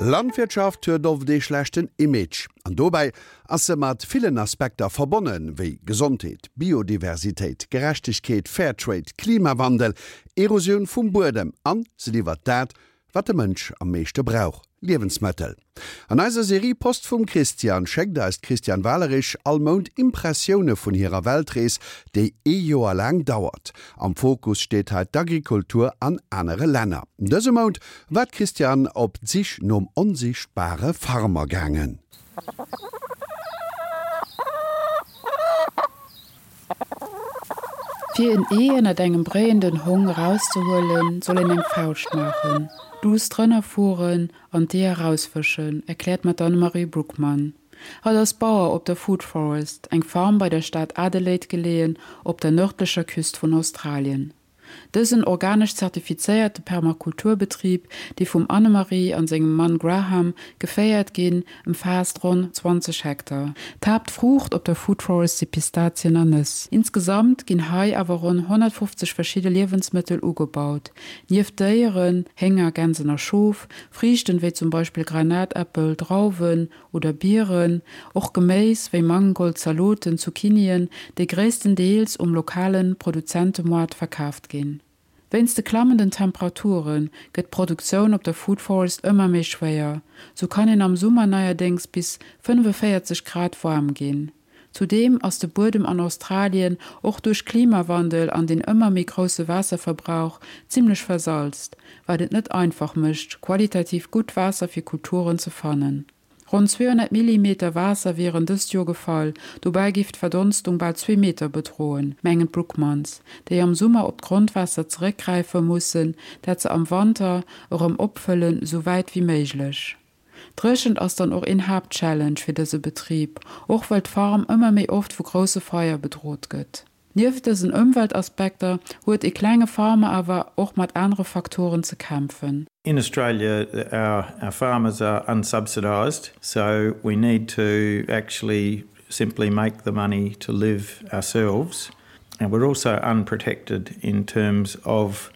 Landwirtschaft huet oft ee schlechten Image. An dobäi ass se mat villen Aspekter verbonnen, wéi Gesondheet, Biodiversitéit, Gerechtegkeet, Fairtrade, Klimawandel, Erosioun vum Buedem an se liwwert dat, wat de Mënsch am meeschte brauch, Liewensmëttel. An eiser Serie Post vum Christian schéckt eis d'Christiane Walerich all Mount Impressioune vun hirer Weltrees, déi ee Joer laang dauert. Am Fokus steet hei d'Agrikultur an anere Länner. Dëse Mount war d'Christiane op d'Sich nom onsichtbare Farmer gaangen. Fir en Ee ënnert engem bréienden Hong erauszehuelen, soll een eng Fauscht maachen, duuss drënner fueren an d'Ee erausfëschen, erkläert mer d'Annemarie Brookman. Hatt ass Bauer op der Food Forest, eng Farm bei der Stad Adelaide geleeën op der nërdlecher Küst vun Australien. Dësen organesch zertifizéierte Permakulturbetrib, dee vum Annemarie an sengem Mann Graham geféiert ginn, ëmfaasst ronn 20 Hektar. D'Haaptfruucht op der Food Forest si Pistazien a Nëss. Insgesamt ginn hei awer ronn 150 verschidde Liewensmëttel ugebaut. Nieft Déieren, Hénger, Gänsen a Schof, Friichten wéi zum Beispill Granatäppel, Drauwen, oder Bieren, och Geméis wéi Mangold, Zaloten, Zucchinien, déi gréisstendeels um lokale Produzentemoart verkaaft ginn. Wéinst de klammenden Temperature gëtt d'Produktioun op der Food Forest ëmmer méi schwéier. Sou kann een am Summer neierdéngs bis 45 Grad waarm ginn. Zudeem ass de Buedem an Australien och duerch Klimawandel an den ëmmer méi grousse Waasserverbrauch zimmlech versalzt, wat et net einfach mécht, qualitativ gutt Waasser fir Kulturen ze fannen. Ronn 200 Millimeter Waasser wieren dëst Joer gefall, dobäi giff d'Verdonstung bal zwee Meter bedroen, mengen d'Brookmans, déi am Summer op d'Grondwaasser zeréckgräife mussen, dat se am Wanter erëm opfëllen, sou wäit wéi méiglech. D'Dréchent ass dann och een Haaptchallenge fir dëse Betrib, och well d'Farm ëmmer méi oft vu grousse Feier bedrot gëtt. Nieft dësen Ëmweltaspekter huet e klenge Farmer awer och mat anere Faktoren ze kämpfen. In Australia our our farmers are unsubsidised, so we need to actually simply make the money to live ourselves and we're also unprotected in terms of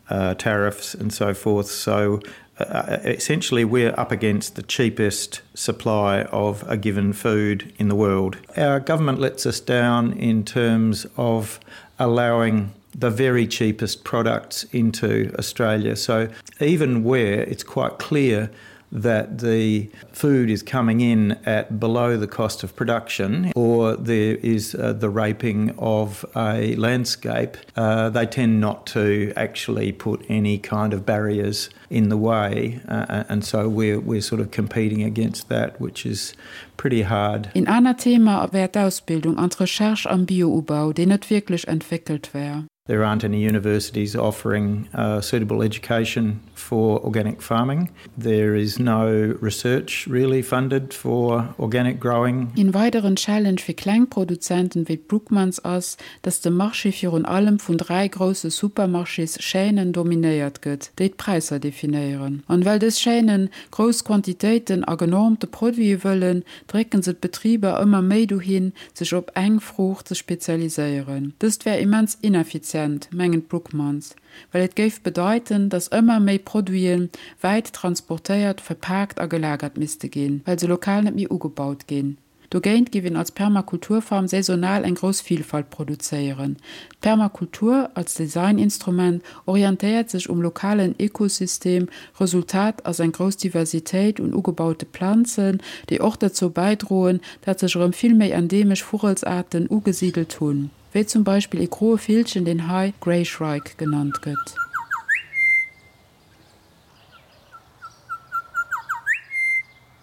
uh, tariffs and so forth. So uh, uh, essentially we're up against the cheapest supply of a given food in the world. Our government lets us down in terms of allowing the very cheapest products into Australia. So even where it's quite clear that the food is coming in at below the cost of production or there is uh, the raping of a landscape, uh, they tend not to actually put any kind of barriers in the way uh, and so we're, we're sort of competing against that, which is pretty hard. Een anert Thema wär d'Ausbildung an d'Recherche am Bioubau, déi net wierklech entwéckelt wär. There aren't any universities offering uh, suitable education for organic farming. There is no research really funded for organic growing. Een weideren Challenge fir kleng Produzenten wéi d'Brookmans ass, dass de Marché virun allem vun 3 grousse Supermarchés-Chaînen dominéiert gëtt, déi d'Präisser definéieren. An well dës Chaînen grouss Quantitéiten a genormte Produite wëllen, drécken se d'Betriber ëmmer méi dohin, sech op eng Fruucht ze spezialiséieren. Dëst wär immens ineffizient, mengen d'Brookmans, well et géif bedeiten, datt ëmmer méi Produite wäit transportéiert, verpaakt a gelagert misste ginn, well se lokal net méi ugebaut ginn. Dogéint géif een als Permakulturfarm saisonal eng grouss Vilfalt produzéieren. D'Permakultur als Designinstrument orientéiert sech um lokalen Ekosystem, Resultat ass eng grouss Diversitéit un ugebaute Planzen, déi och derzou bäidroen, dat sech erëm vill méi endeemesch Vugelsaarten ugesidelt hunn, wéi zum Beispill ee groe Villchen, deen hei Grey Shrike genannt gëtt.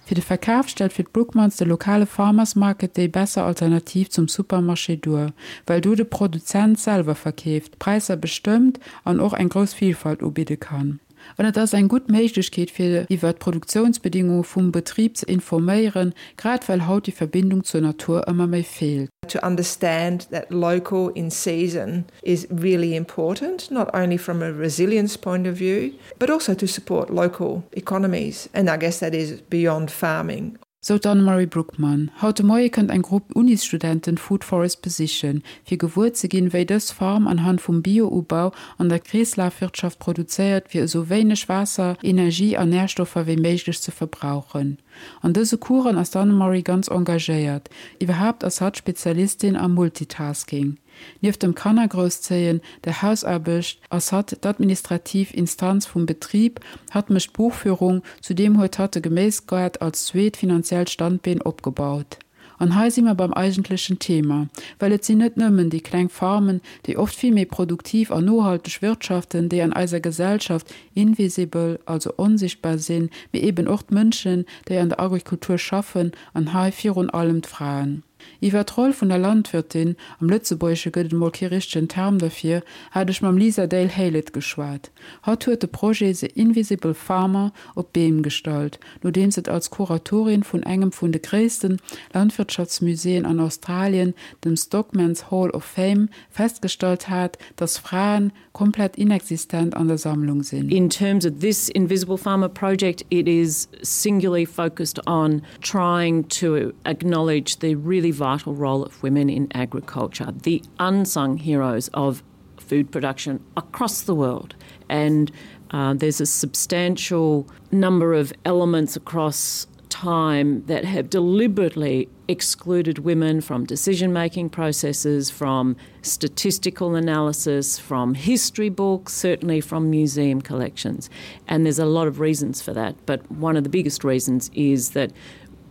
Fir de Verkaf stellt fir d'Brookmans de lokale Farmers Market déi besser Alternativ zum Supermarché duer, well do de Produzent selwer verkeeft, d'Präisser bestëmmt an och eng grouss Vilfalt ubidde kann. An et ass eng gutt Méiglechkeet fir iwwer d'Produktiounsbedingunge vum Betrib ze informéieren, grad well haut déi Verbindung zur Natur ëmmer méi feelt. To understand that local in season is really important, not only from a resilience point of view, but also to support local economies and I guess that is beyond farming. Sou d'Annemarie Brookman. Haut de Moie kënnt eng Grupp Unisstudenten d'Food Forest besichen, fir gewuer ze ginn, wéi dës Farm anhand vum Bio-Ubau an der Kreeslafwirtschaft produzéiert, fir esou wéineg Waasser, Energie an Närstoffer wéi méiglech ze verbrauchen. An dëse Coursen ass d'Annemarie ganz engagéiert. Iwwerhaapt ass hatt Spezialistin am Multitasking. Nieft dem Kannergrousszéien, der Hausaarbecht ass hatt d'administrativ Instanz vum Betrib, hatt mécht d'Buchführung, zudeem huet hatt de Geméisgaart als zweet finanziellt Standbeen opgebaut. An hei si mer beim eigentlechen Thema, well et sinn net nëmmen déi kleng Farmen, déi oft vill méi produktiv an nohalteg wirtschaften, déi an eiser Gesellschaft invisible, also onsichtbar sinn, mee eben och d'Mënschen, déi an der Agrikultur schaffen, an hei virun allem d'Fraen. Iwwer d'Roll vun der Landwirtin, am Lëtzebuergesche gëtt et emol kee richtegen Term derfir, hat ech mam Lisa Dale Haylett geschwat. Hatt huet de Projet The Invisible Farmer op d'Been gestallt, nodeems et als Kuratorin vun engem vun de gréisste Landwirtschaftsmuséeën an Australien, dem Stockman's Hall of Fame, festgestallt hat, dass Fraen komplett inexistent an der Sammlung sinn. In terms of this Invisible Farmer project, it is singularly focused on trying to acknowledge the really vital role of women in agriculture, the unsung heroes of food production across the world. And uh, there's a substantial number of elements across time that have deliberately excluded women from decision-making processes, from statistical analysis, from history books, certainly from museum collections. And there's a lot of reasons for that, but one of the biggest reasons is that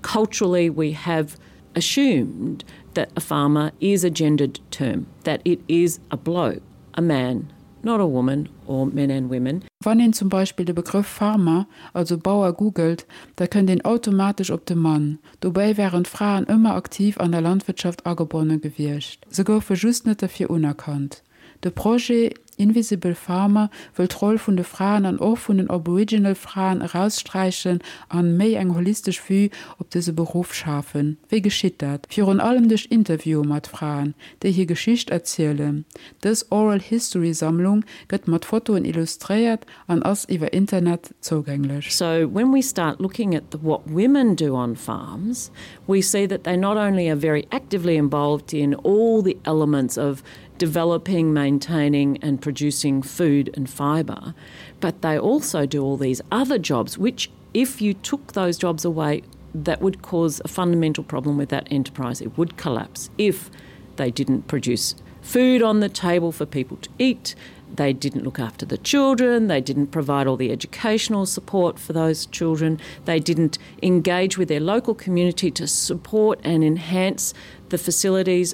culturally we have assumed that a farmer is a gendered term, that it is a bloke, a man, not a woman or men and women. Wann een zum Beispill de Begrëff Farmer, also Bauer googelt, da kënnt een automatesch op de Mann. Dobäi waren d'Fraen ëmmer aktiv an der Landwirtschaft agebonne gewiescht, se goufe just net derfir unerkannt. De Projet Invisible Farmer wëll d'Roll vun de Fraen an och vun den Aboriginal Fraen eraussträichen an méi eng holistesch Vue op dëse Beruff schafen. Wéi geschitt dat? Virun allem duerch Interviewe mat Fraen, déi hir Geschicht erzielen. Dës Oral History Sammlung gëtt mat Fotoen illustréiert an ass iwwer Internet zougänglech. So when we start looking at the, what women do on farms, we see that they not only are very actively involved in all the elements of developing, maintaining and producing food and fibre, but they also do all these other jobs, which if you took those jobs away, that would cause a fundamental problem with that enterprise. It would collapse if they didn't produce food on the table for people to eat, they didn't look after the children, they didn't provide all the educational support for those children, they didn't engage with their local community to support and enhance the facilities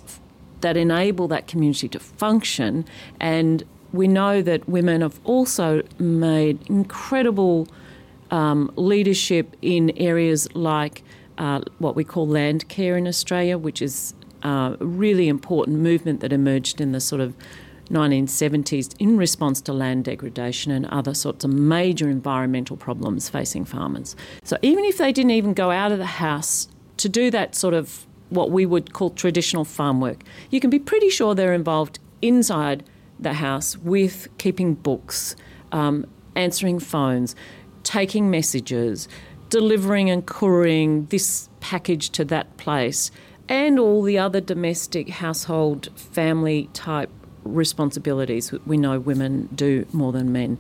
that enable that community to function. And we know that women have also made incredible um, leadership in areas like uh, what we call land care in Australia, which is uh, a really important movement that emerged in the sort of 1970s in response to land degradation and other sorts of major environmental problems facing farmers. So even if they didn't even go out of the house to do that sort of what we would call traditional farm work, you can be pretty sure they're involved inside the house with keeping books, um, answering phones, taking messages, delivering and couriering this package to that place, and all the other domestic household family type responsibilities we know women do more than men.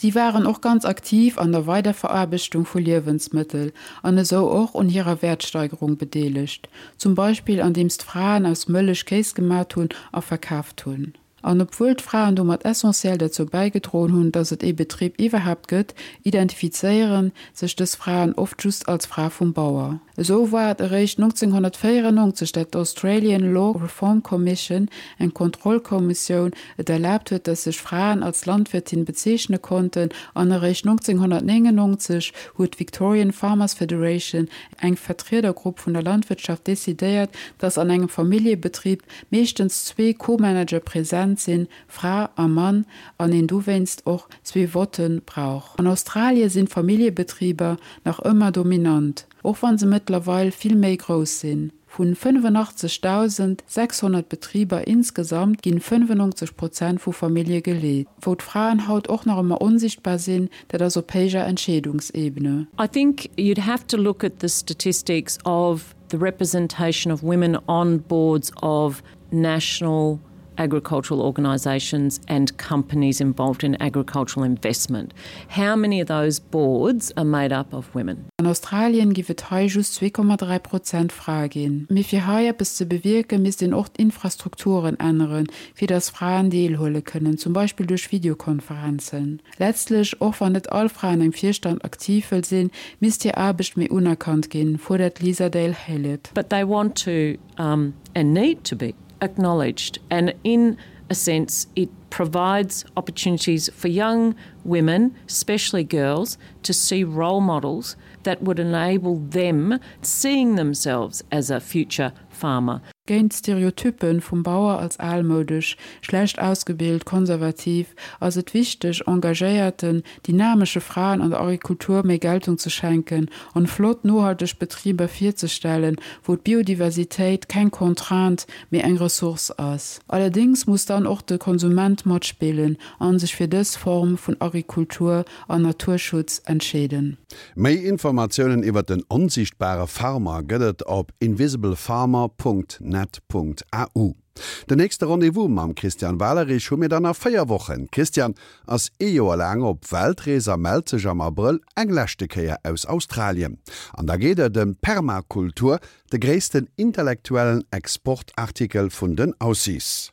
Si waren och ganz aktiv an der Weiderveraarbechtung vu Liewensmëttel an esou och un hirer Wäertsteigerung bedeelegt, zum Beispill andeems d'Fraen aus Mëllech Kéis gemat hunn a verkaaft hunn. An obwuel d'Fraen domat essentiell derzou bäigedroen hunn, datt et ee Betrib iwwerhaapt gëtt, identifizéiere sech dës Fraen oft just als Fra vum Bauer. Esou war et eréischt 1994, dat d'Australian Law Reform Commission, eng Kontrollkommissioun, et erlaabt huet, datt sech Fraen als Landwirtin bezeechne konnten, an eréischt 1999 huet d'Victorian Farmers Federation, eng Vertriedergrupp vun der Landwirtschaft, decidéiert, datt an engem Familljebetrib meeschtens zwee Co-Manager present sinn, Fra a Mann, an een dowéinst och zwee Votte brauch. An Australie sinn d'Familljebetriber nach ëmmer dominant, och wa se mëttlerweil vill méi grouss sinn. Vun 85.600 Betriber insgesamt ginn 95 Prozent vu Famillje geleet. Wou d'Fraen haut och nach ëmmer onsichtbar sinn, dat ass op héijer Entscheedungsebene. I think you'd have to look at the statistics of the representation of women on boards of national agricultural organisations and companies involved in agricultural investment. How many of those boards are made up of women? An Australien giff et hei just 2,3 Prozent Frae ginn. Mee fir hei eppes ze bewierken, misst een och d'Infrastrukturen änneren, fir datt Fraen deelhuele kënnen, zum Beispill duerch Videokonferenzen. Letztlech, och wann net all Fra an engem Virstand aktiv wëll sinn, misst hir Aarbecht méi unerkannt ginn, fuerdert d'Lisa Dale Haylett. But they want to um, and need to be acknowledged and in a sense it provides opportunities for young women, especially girls, to see role models that would enable them seeing themselves as a future farmer. Géint d'Stereotyppen vum Bauer als almoudesch, schlecht ausgebilt, konservativ, ass et wichteg, engagéierten, dynamesche Fraen an der Agrikultur méi Geltung ze schenken an flott, nohalteg Betriber virzestellen, wou d'Biodiversitéit keng Contrainte, mee eng Ressource ass. Allerdéngs muss dann och de Konsument matspillen an sech fir dës Form vun Agrikultur an Naturschutz entscheeden. Méi Informatiounen iwwer den onsiichtbare Farmer gëtt et op invisiblefarmer.net.au. Den nächste Rendez-vous mam Christian Walerich hu mir dann a 4 Wochen. D'Christiane ass ee Joer laang op Weltrees a mellt sech am Abrëll eng leschte Kéier aus Australien. An da geet et ëm d'Permakultur, de gréissten intellektuellen Exportartikel vun den Aussies.